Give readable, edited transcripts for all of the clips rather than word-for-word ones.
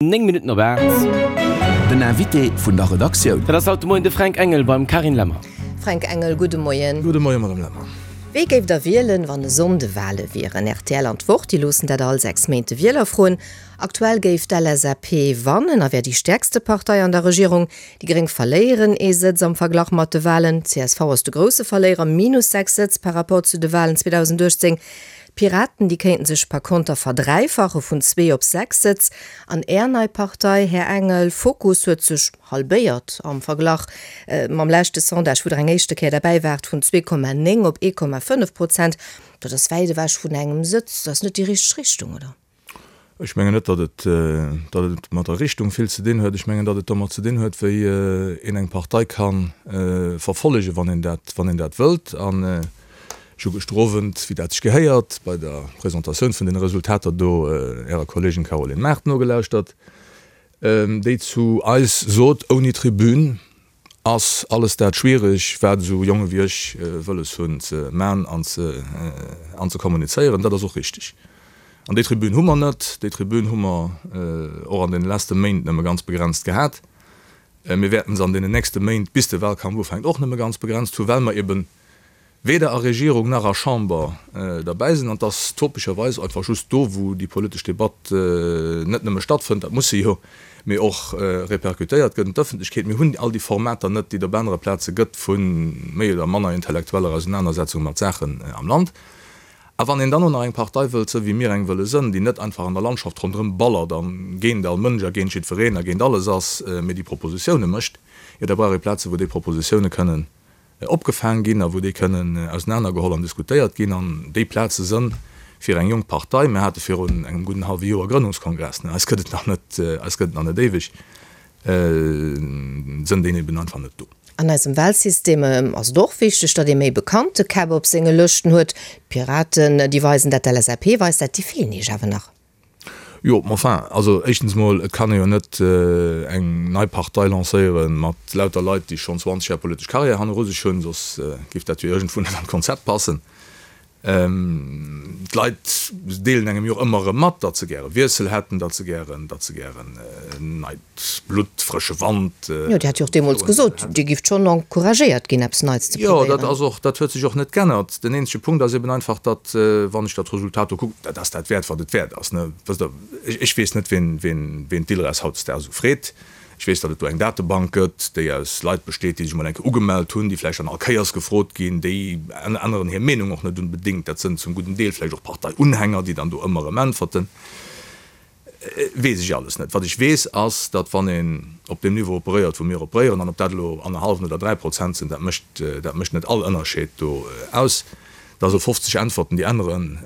9 Minutten op 8. Den Invité vun der Redaktioun. Dat ass haut de Moien de Fränk Engel beim Carine Lemmer. Fränk Engel, gudde Moien. Gudde Moien, Madame Lemmer. Wéi géift der wielen, wann e Sonnde Wale wieren? Rtl an d'Wort, déi loossen dat all 6 Méint de Wieler froen. Aktuell géif d'LSAP wannen a wär déi stäerkste Partei an der Regierung. Déi Gréng verléieren ee Sëtz am Verglach mat de Walen. Csv ass de grousse Verléierer, minus 6 Sëtz par rapport zu de Walen 2018. D'Piraten, déi kéinten sech par konter verdräifache vun zwee op 6 Sëtz. An Är nei Partei, Här Engel, Fokus, huet sech halbéiert am Verglach mam leschte Sondage, wou Der eng éischte Kéier derbäi waart, vun 2,9 op 1,5 Prozent. Dat ass wäit ewech vun engem Sëtz. Dat ass net déi richteg Richtung, oder? Ech mengen net, datt et, datt et mat der Richtung vill ze dinn huet. Ech mengen, datt et domat ze dinn huet, wéi een eng Partei ka verfollegen, wann een dat, wann een dat wëllt. An ech hu gëschter Owend, wéi dat sech gehéiert, bei der Presentatioun vun deene Resultater do Ärer Kolleegin Caroline Mart nogelauschtert, déi zu eis sot, Ouni Tribün Ass alles dat schwiereg, wat esou Jonge wéi ech wëlles hunn ze man an ze an ze kommunizéieren. Dat ass och richteg. An déi Tribün hu mer net. Déi Tribün hu mer och an deene leste Méint nëmme ganz begrenzt gehat. Mir wäerten se an deenen nächste Méint, bis de Wahlkampf ufänkt, och nëmme ganz begrenzt hu, well mer eben weder a Regierung nach a Chamber derbäi sinn. An et ass topescherweis einfach just do, wou déi politesch Debatt net nëmme stattfënnt, dat muss se jo, mee och repercutéiert gëtt un d'Ëffentlechkeet. Mir hunn all déi Formater net, déi et op anere Plaze gëtt, vu méi oder manner intellektueller Ausenanersetzung mat Saachen am Land. A wann een dann och nach eng Partei wëllt sënn, wéi mir eng wëlle sënn, déi net einfach an der Landschaft ronderëm ballert a géint all Mënsch a géint jiddwereen a géint alles ass, mee déi Propositioune mécht, jo da brauch ee Plaze wou déi Propositioune kënnen opgefaang ginn a wou déi kënnen ausenanergeholl an diskutéiert ginn. An déi Plaze sënn fir eng jonk Partei, mir hate virun engem gudden hallwe Joer Grënnungskongress, eis gëtt et nach net, eis gëtt et nach net éiweg, sënn déi eben einfach net do. An eisem Wahlsystem ass et och wichteg, datt ee méi bekannte Käpp op senge Lëschten huet. D'Piraten, déi weisen dat, d'LSAP weist dat, déi feelen Iech awer nach. Jo, ma enfin, also éischtens emol, et kann ee jo net eng nei Partei lancéiere mat lauter Leit, déi schonn 20 Jar politesch Carrière hanneru sech hunn, soss géif dat jo iergendwou net an d'Konzept passen. D'Leit deelen engem jo och ëmmer erëm mat, datt se gäre Wiessel hätten, datt se gären, datt se gären neit Blutt, frësche Wand. Jo, Dir hat jo och deemools gesot, Dir gifft schonn encouragéiert ginn, eppes Neits ze probéieren. Jo, dat ass och, dat huet sech och net g'ännert. Den eenzege Punkt ass eben einfach, datt, wann ech dat Resultat do kucken, dat ass dat wäert, wat et wäert ass, ne? Wësst Der, ech weess net, wien, wien, wien d'ILRES hautdesdaags esou freet. Ech weess, datt et do eng Datebank gëtt, déi aus Leit besteet, déi sech emol eng Kéier ugemellt hunn, déi vläicht dann all Kéiers gefrot ginn. Déi änneren hir Meenung och net unbedéngt. Dat sënn zum gudden Deel vläicht och Parteiunhänger, déi dann do ëmmer erëm äntwerten. Weess ech alles net. Wat ech weess, ass, datt wann een op deem Niveau operéiert, wou mir operéieren, an ob dat elo annerhallwen oder 3% sinn, dat mécht, dat mécht net all Ënnerscheed do aus, da sou 50 Äntwerten, déi änneren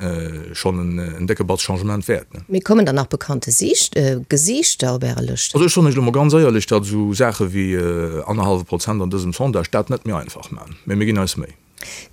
schonn en décke Batz Changement wäert. Mee kommen dann nach bekannte Gesiichter op Äre Lëschten? Also ech soen Iech elo mol ganz éierlech, datt esou Saache wéi annerhallwe Prozent an dësem Sondage dat net méi einfach man. Mee mir ginn eis Méi.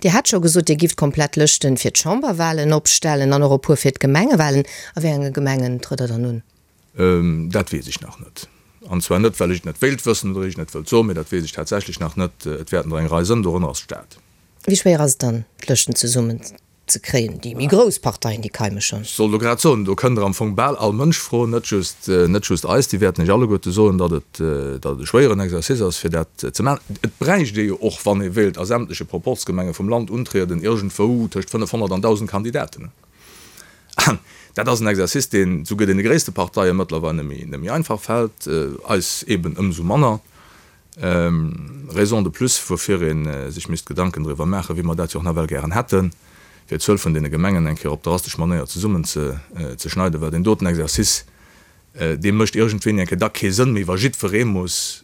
Dir hat scho gesot, Dir gifft komplett Lëschten fir d'Chamberwahlen opstellen an och e puer fir d'Gemengewahlen. A wéi enge Gemengen trëtt Der dann un? Dat weess ech nach net. An zwar net, well ech et net wéilt wëssen oder ech et net wëllt soen, mee dat weess ech tatsächlech nach net. Et wäerten der eng Rei sënn, dorënner ass d'Stad. Wéi schwéier ass et dann, d'Lëschten zesummen ze kréien. Déi méi grouss Parteien, déi keime schonn. Ech sollt elo grad soen, do kënnt Der am Fong bal all Mënsch froen, net just, net just eis. Déi wäerten Iech alleguerte soen, datt et, datt et e schwéieren Exercice ass, fir dat ze maachen. Et bräicht ee jo och, wann ee wéilt a sämtleche Proporzgemenge vum Land untrieden, iergendwou tëscht 500 an 1.000 Kandidaten. An dat ass en Exercice, deen souguer deene gréisste Parteie mëttlerweil net méi, net méi einfach fält, eis eeben ëmsou manner. Raison de plus, woufir ee sech misst Gedanken driwwer maachen, wéi mer dat jo och nawell gären hätten, fir d'Zuel vun deene Gemengen eng Kéier op drastesch Manéier zesummen ze schneiden, well deen doten Exercice, dee mécht iergendwéini eng Kéier da kee Sënn méi, wa jiddweree muss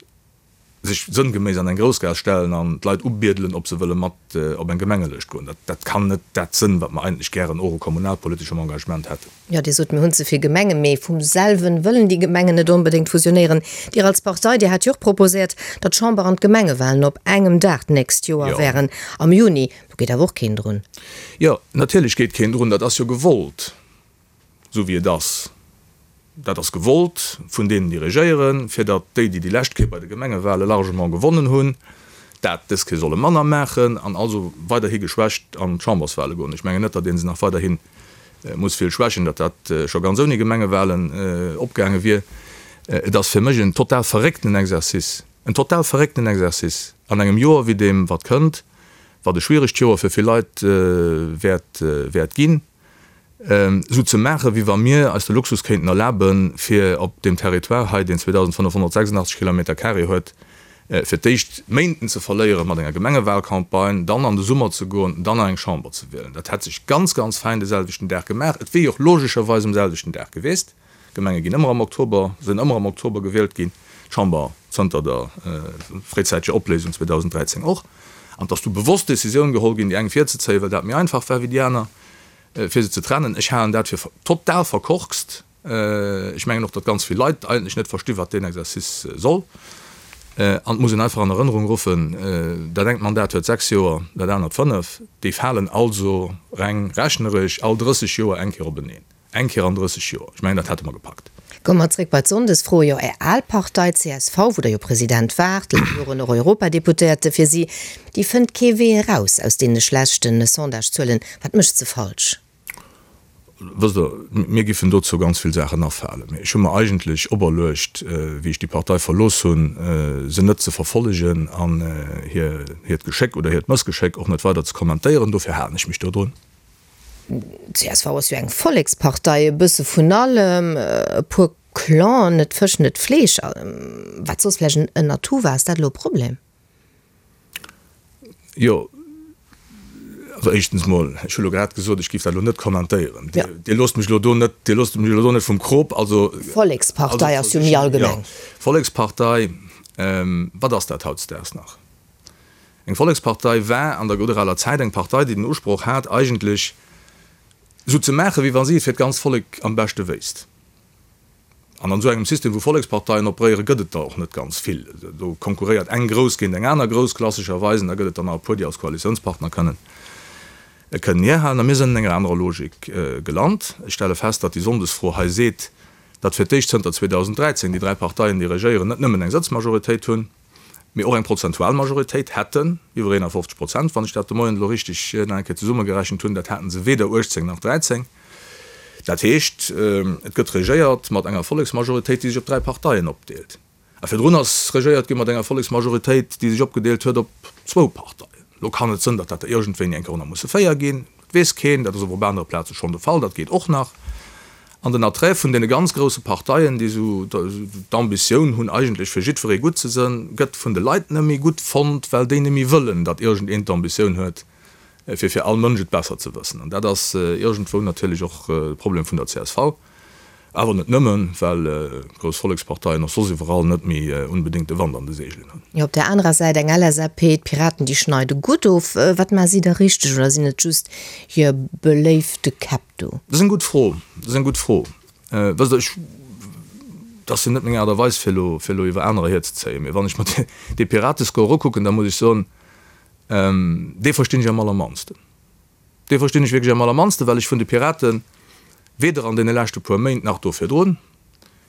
sech sënngeméiss an eng Groussgaass stellen an d'Leit ubiedelen, ob se wëlle mat op eng Gemengelëscht goen. Dat kann net dat sënn, wat mer eigentlech gären och u kommunalpoliteschem Engagement hätten. Jo, Dir sot, mir hunn ze vill Gemengen, mee vum selwen wëllen déi Gemengen net onbedéngt fusionéieren. Dir als Partei, Dir hat jo och proposéiert, datt d'Chamber an d'Gemengewahlen op engem Dag d'nächst Joer wären, am Juni. Do geet awer och keen drun. Jo, natierlech geet keen drun. Dat ass jo gewollt, esou wéi et ass. Dat ass gewollt vun deenen, déi regéieren, fir datt déi, déi déi lescht Kéier bei de Gemengewahle largement gewonnen hunn, dat dës Kéier solle manner maachen an also weiderhi geschwächt an d'Chamberswahle goen. Ech mengen net, datt ee se nach weiderhi muss vill schwächen, datt dat scho ganz ouni Gemengewahlen opgaange wier. Et ass fir mech en total verréckten Exercice, en total verréckten Exercice an engem Joer wéi deem wat kënnt, wat e schwieregt Joer fir vill Leit wäert wäert ginn, esou ze maachen, wéi wa mir eis de Luxus kéinten erlaben, fir op deem Territoire hei, deen 2.586 Kilometer carré huet, fir d'éischt Méinten ze verléiere mat enger Gemengewahlcampagne, dann an de Summer ze goen, dann nach eng Chamber ze wielen. Dat hätt sech ganz, ganz fäin de selwechten Dag gemaach. Et wier jo och logescherweis um selwechten Dag gewiesst. D'Gemenge ginn ëmmer am Oktober, sinn ëmmer am Oktober gewielt ginn, d'Chamber zënter der fréizäiteger Opléisung 2013 och. An et ass du bewosst d'Decisioun geholl ginn, déi eng virzezéien, well dat méi einfach war wéi déi aner, fir se ze trennen. Ech halen dat fir total verkorkst. Ech mengen och, datt ganz vill Leit eigentlech net versti wat deen Exercice soll. An et muss een einfach an Erënnerung ruffen, dat engt Mandat huet 6 Joer, dat anert 5. Déi falen also reng rechneresch all 30 Joer eng Kéier openeen. Eng Kéier an 30 Joer. Ech mengen, dat hätte mer gepackt. Komme mer zréck bei d'Sonndesfro. Jo, Är al Partei csv, wou Der jo President waart, laang Joren och Europadeputéierte fir si, déi fënnt kee Wee eraus aus deene schlechte Sondagezuelen. Wat mécht se falsch? Wësst Der, mir giffen dozou ganz vill Saachen afalen. Mee ech hu mer eigentlech operluecht, wéi ech déi Partei verlooss hunn, se net ze verfollegen an hiert Geschéck oder hiert Mëssgeschéck och net weider ze kommentéieren. Dofir halen ech mech dodrun. Csv ass jo eng Vollekspartei, e bësse vun allem, e puer Clanen, net Fësch, net Fleesch, wat soss vläicht en Atout war. Ass dat elo e Problem? Jo, also éischtens mol, ech hu lo grad gesot, ech géif dat elo net kommentéieren. Dir loosst mech elo do net, Dir loosst mech elo do net vum Krop. Also. Vollekspartei ass jo méi allgemeng. Jo, Vollekspartei, wat ass dat hautdesdaags nach? Eng Vollekspartei war an der gudder aler Zäit eng Partei, déi den Usproch hat, eigentlech esou ze maachen, wéi wa si et fir d'ganzt Vollek am beschte wéisst. An an esou engem System, wou Volleksparteien operéieren, gëtt et der och net ganz vill. Do konkurréiert eng grouss géint eng aner grouss, klassescherweis, an da gëtt et der nach e puer, déi als Koalitiounspartner kënnen kënnen hierhalen. A mir sinn an enger anerer Logik gelant. Ech stelle fest, datt déi Sonndesfro hei seet, datt fir d'éischt zënter 2013 déi dräi Parteien, déi regéieren, net nëmmen eng Sëtzmajoritéit hunn, mee och eng prozentual Majoritéit hätten, iwwer 51 Prozent, wann ech dat de Moien elo richtig nach eng Kéier zesummegerechent hunn, dat haten se weder 18 nach 13. Dat heescht, et gëtt regéiert mat enger Volleksmajoritéit, déi sech op dräi Parteien opdeelt. A virdrun ass regéiert gi mat enger Volleksmajoritéit, déi sech opgedeelt huet op zwou Parteien. Elo kann et sënn, datt dat der iergendwéini eng Kéier och nach musse 4 ginn. Dat weess keen. Dat ass awer op anere Plaze schonn de Fall. Dat geet och nach. An den Attrait vun deene ganz grousse Parteien, déi esou d'Ambitioun hunn, eigentlech fir jiddweree gutt ze sënn, gëtt vun de Leit net méi gutt fonnt, well déi net méi wëllen, datt iergendeen d'Ambitioun huet, fir fir all Mënsch et besser ze wëssen. An dat ass iergendwou natierlech och de Problem vun der csv. Awer net nëmmen, well grouss Volleksparteien och soss iwwerall net méi unbedéngt de Wand an de Seegelen hunn. Jo, op där anerer Säit eng LSAP, d'Piraten, déi schneide gutt of. Wat maache si da richteg oder sinn et just hir beléifte Käpp do? Dat ass eng gutt Fro. Dat ass eng gutt Fro. Wësst Der, ech, dat ass jo net meng Aart a Weis, fir elo, fir elo iwwer anerer hierzezéien. Mee wann ech mer dee Piratescore ukucken, da muss ech soen, dee verstinn ech am allermannsten. Dee verstinn ech wierklech am allermannsten, well ech vun de Piraten weder an deene leschte puer Méint nach do virdrun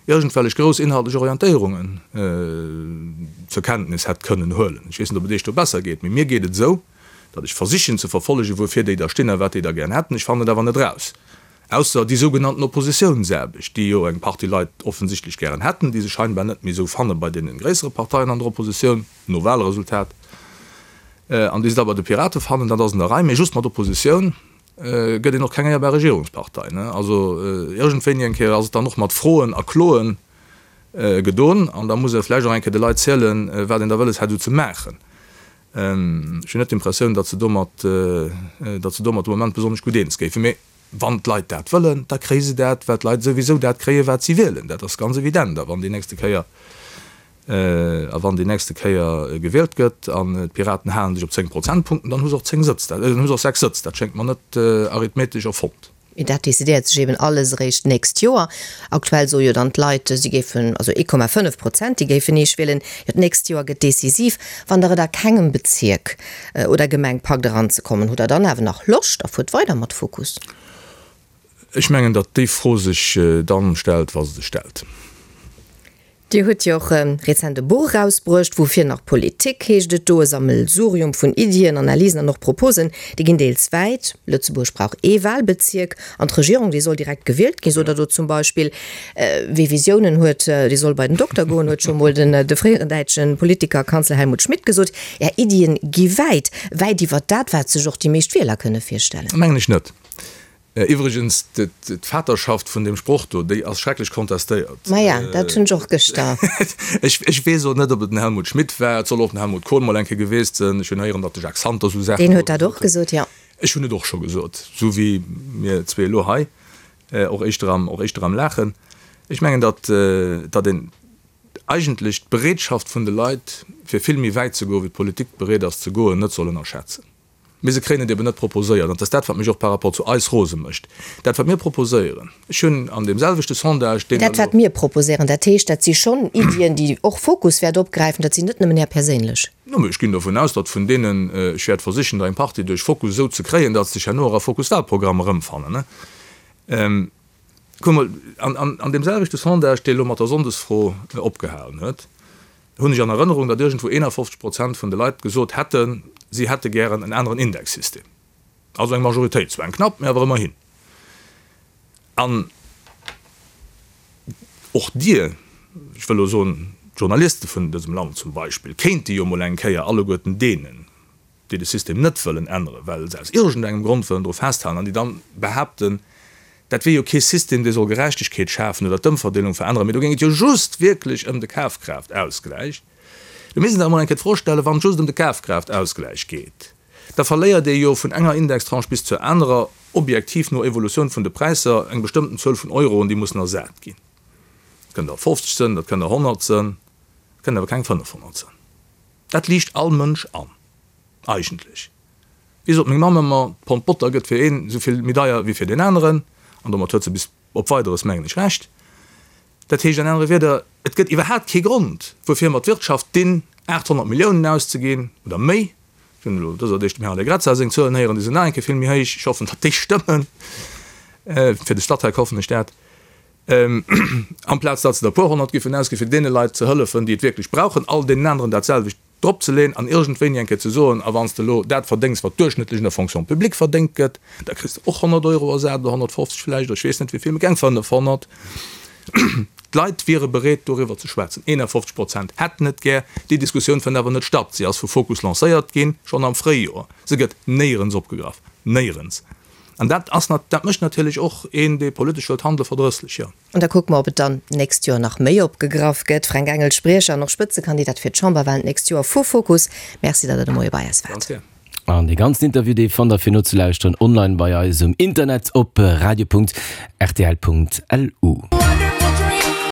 iergendwellech grouss inhaltlech Orientéierungen zur Kenntnis hätt kënnen huelen. Ech weess net, ob et Iech do besser geet, mee mir geet et esou, datt ech versichen ze verfollegen, wuerfir déi da stinn a wat déi da gären hätten. Ech fannen et awer net eraus, ausser déi sougenannten Oppositiounsaarbecht, déi jo eng Partie Leit offensichtlech gären hätten, déi se scheinbar net méi esou fanne bei deene gréissere Parteien an der Oppositioun. No Wahlresultat, an déi se da bei de Pirate fannen, dat ass an der Rei, mee just mat Oppositioun gëtt een och keng éierbar Regierungspartei. Also iergendwéini eng Kéier ass et dann och mat Froen a Kloen gedon, an da muss ee vläicht och eng Kéier de Leit zielen, wat een da wëlles hätt esou ze maachen. Ech hunn net d'Impressioun, datt se domat, datt se domat de Moment besonnesch gutt eens géifen. Mee wann d'Leit dat wëllen, da kréie se dat, well d'Leit souwisou dat kréien, wat si wielen. Dat ass ganz evident. A wann déi nächste Kéier A wann déi nächste Kéier gewielt gëtt an d'Piraten halen sech op 10 Prozentpunkten, dann hu se och 10 Sëtz, dann hu se och 6 Sëtz. Dat schéngt mer net arithmetesch erfonnt. Mee dat decidéiert sech eben alles eréischt d'nächst Joer. Aktuell soe jo dann d'Leit, si géifen, also 1,5 Prozent, déi géifen Iech wielen. Jo, d'nächst Joer gëtt decisiv. Wann Der et a kengem Bezierk oder Gemeng packt eranzekommen, hutt Der dann awer nach Loscht a fuert weider mat Fokus? Ech mengen, datt déi Fro sech dann stellt, wa se sech stellt. Dir hutt jo och rezent e Buch erausbruecht, Woufir nach Politik heescht et do, e Sammelsurium vun Iddien, Analysen an och Proposen. Déi ginn deels wäit, Lëtzebuerg brauch ee Wahlbezierk an d'Regierung, déi soll direkt gewielt ginn, sot Der do zum Beispill. Wie Visiounen huet, dee soll bei den Dokter goen, huet scho mol den de fréieren däitsche Politiker a Kanzler Helmut Schmidt gesot. Är Iddien gi wäit, wäit iwwert dat, wat sech och déi meescht Wieler kënne virstellen. Mengen ech net. Iwwregens, d'Vaterschaft vun deem Sproch do, déi ass schrecklech kontestéiert. Maja, dat hunn ech och gëschter. Ech weess och net, ob et den Helmut Schmidt war. Et soll och den Helmut Kohl mol eng Kéier gewiescht sinn. Ech hunn héieren, datt de Jacques Santer esou Saache Deen huet dat och gesot, jo. Ech hunn et och scho gesot, esou wéi mir zwee elo hei, och éischter am, och éischter am Laachen. Ech mengen, datt, datt een eigentlech d'Bereetschaft vun de Leit, fir vill méi wäit ze goen, wéi d'Politik bereet ass ze goen, net soll ënnerschätzen. Mee se kréien et eben net proposéiert. An et ass dat, wat mech och par rapport zu eis rose mécht. Dat, wat mir proposéieren, ech hunn an deem selwechte Sondage, deen Dat, wat mir proposéieren, dat heescht, dat si schonn Iddien, déi och Fokus wäert opgräifen, dat sinn net nëmmen Är perséinlech. No, mee ech ginn dovun aus, datt vun deenen, ech wäert versichen, der eng Partie duerch Fokus esou ze kréien, datt se sech herno och a Fokus-Wahlprogramm erëmfannen. Kuck mol, an deem selwechte Sondage, dee elo mat der Sonndesfro opgehalen huet, hunn ech an Erënnerung, datt iergendwou 51 Prozent vun de Leit gesot hätten, si hätte gären en aneren Indexsystem. Also eng Majoritéit, zwar eng knapp, mä awer ëmmerhin. An och Dir, ech wëll elo soen, d'Journaliste vun dësem Land zum Beispill, kéinte jo mol eng Kéier alleguerten deenen, déi de System net wëllen änneren, well se aus iergendengem Grond wëllen dru festhalen an déi dann behaapten, dat wier jo kee System, dee soll Gerechtegkeet schafen oder d'Ëmverdeelung veränneren, mee do géing et jo just wierklech ëm de Kafkraaftaussgläich. Do misst een sech emol eng Kéier d'Fro stellen, wann et just ëm de Kafkraaftaussgläich geet, da verléiert ee jo vun enger Indextranche bis zur anerer, objektiv no Evolutioun vun de Präisser, eng bestëmmten Zuel vun Euroen, déi mussen ersat ginn. Dat kënnen der 50 sënn, dat kënnen der 100 sënn, dat kënnen awer keng 500 sënn. Dat liicht all Mënsch an, eigentlech. Wéi sot meng Mamm ëmmer, d'Pond Botter gëtt fir een esou vill méi deier wéi fir deen aneren. An domat huet se bis op Weideres, mengen ech, Recht. Dat heescht an anere Wierder, et gëtt iwwerhaapt kee Grond, wuerfir mer d'Wirtschaft dinn, 800 Milliounen auszeginn oder méi. Ech hunn elo dëser Deeg dem Här Allegrezza seng Zuelen héieren, déi sinn nach eng Kéier vill méi héich. Ech hoffen, datt déi stëmmen. Fir de Statec hoffen ech dat. Amplaz datt se der e puer honnert giffen ausginn, fir deene Leit ze hëllefen, déi et wierklech brauchen, all deenen aneren dat selwecht drop ze leeën an iergendwéini eng Kéier ze soen, a wann s de elo dat verdéngs, wat duerchschnëttlech an der Fonction publique verdéngt gëtt, da kriss de och 100 Euro ersat oder 150 vläicht oder ech weess net wéi vill, mee keng 500. D'Leit wiere bereet, doriwwer ze schwätzen. 51 Prozent hätten et gär. Déi Diskussioun fënnt awer net statt. Si ass vu Fokus lancéiert ginn, schonn am Fréijoer. Se gëtt néierens opgegraff. Néierens. An dat ass, dat mécht natierlech och een, dee politesch wëllt handelen, verdrësslech, jo. An da kucke mer, ob et dann d'nächst Joer nach méi opgegraff gëtt. Fränk Engel, Spriecher an och Spëtzekandidat fir d'Chamberwahlen d'nächst Joer vu Fokus, Merci, datt Der de Moie bei eis waart. Ganz gär. An dee ganzen Interview, dee fannt der fir nozelauschteren online bei eis um Internet op radio.rtl.lu.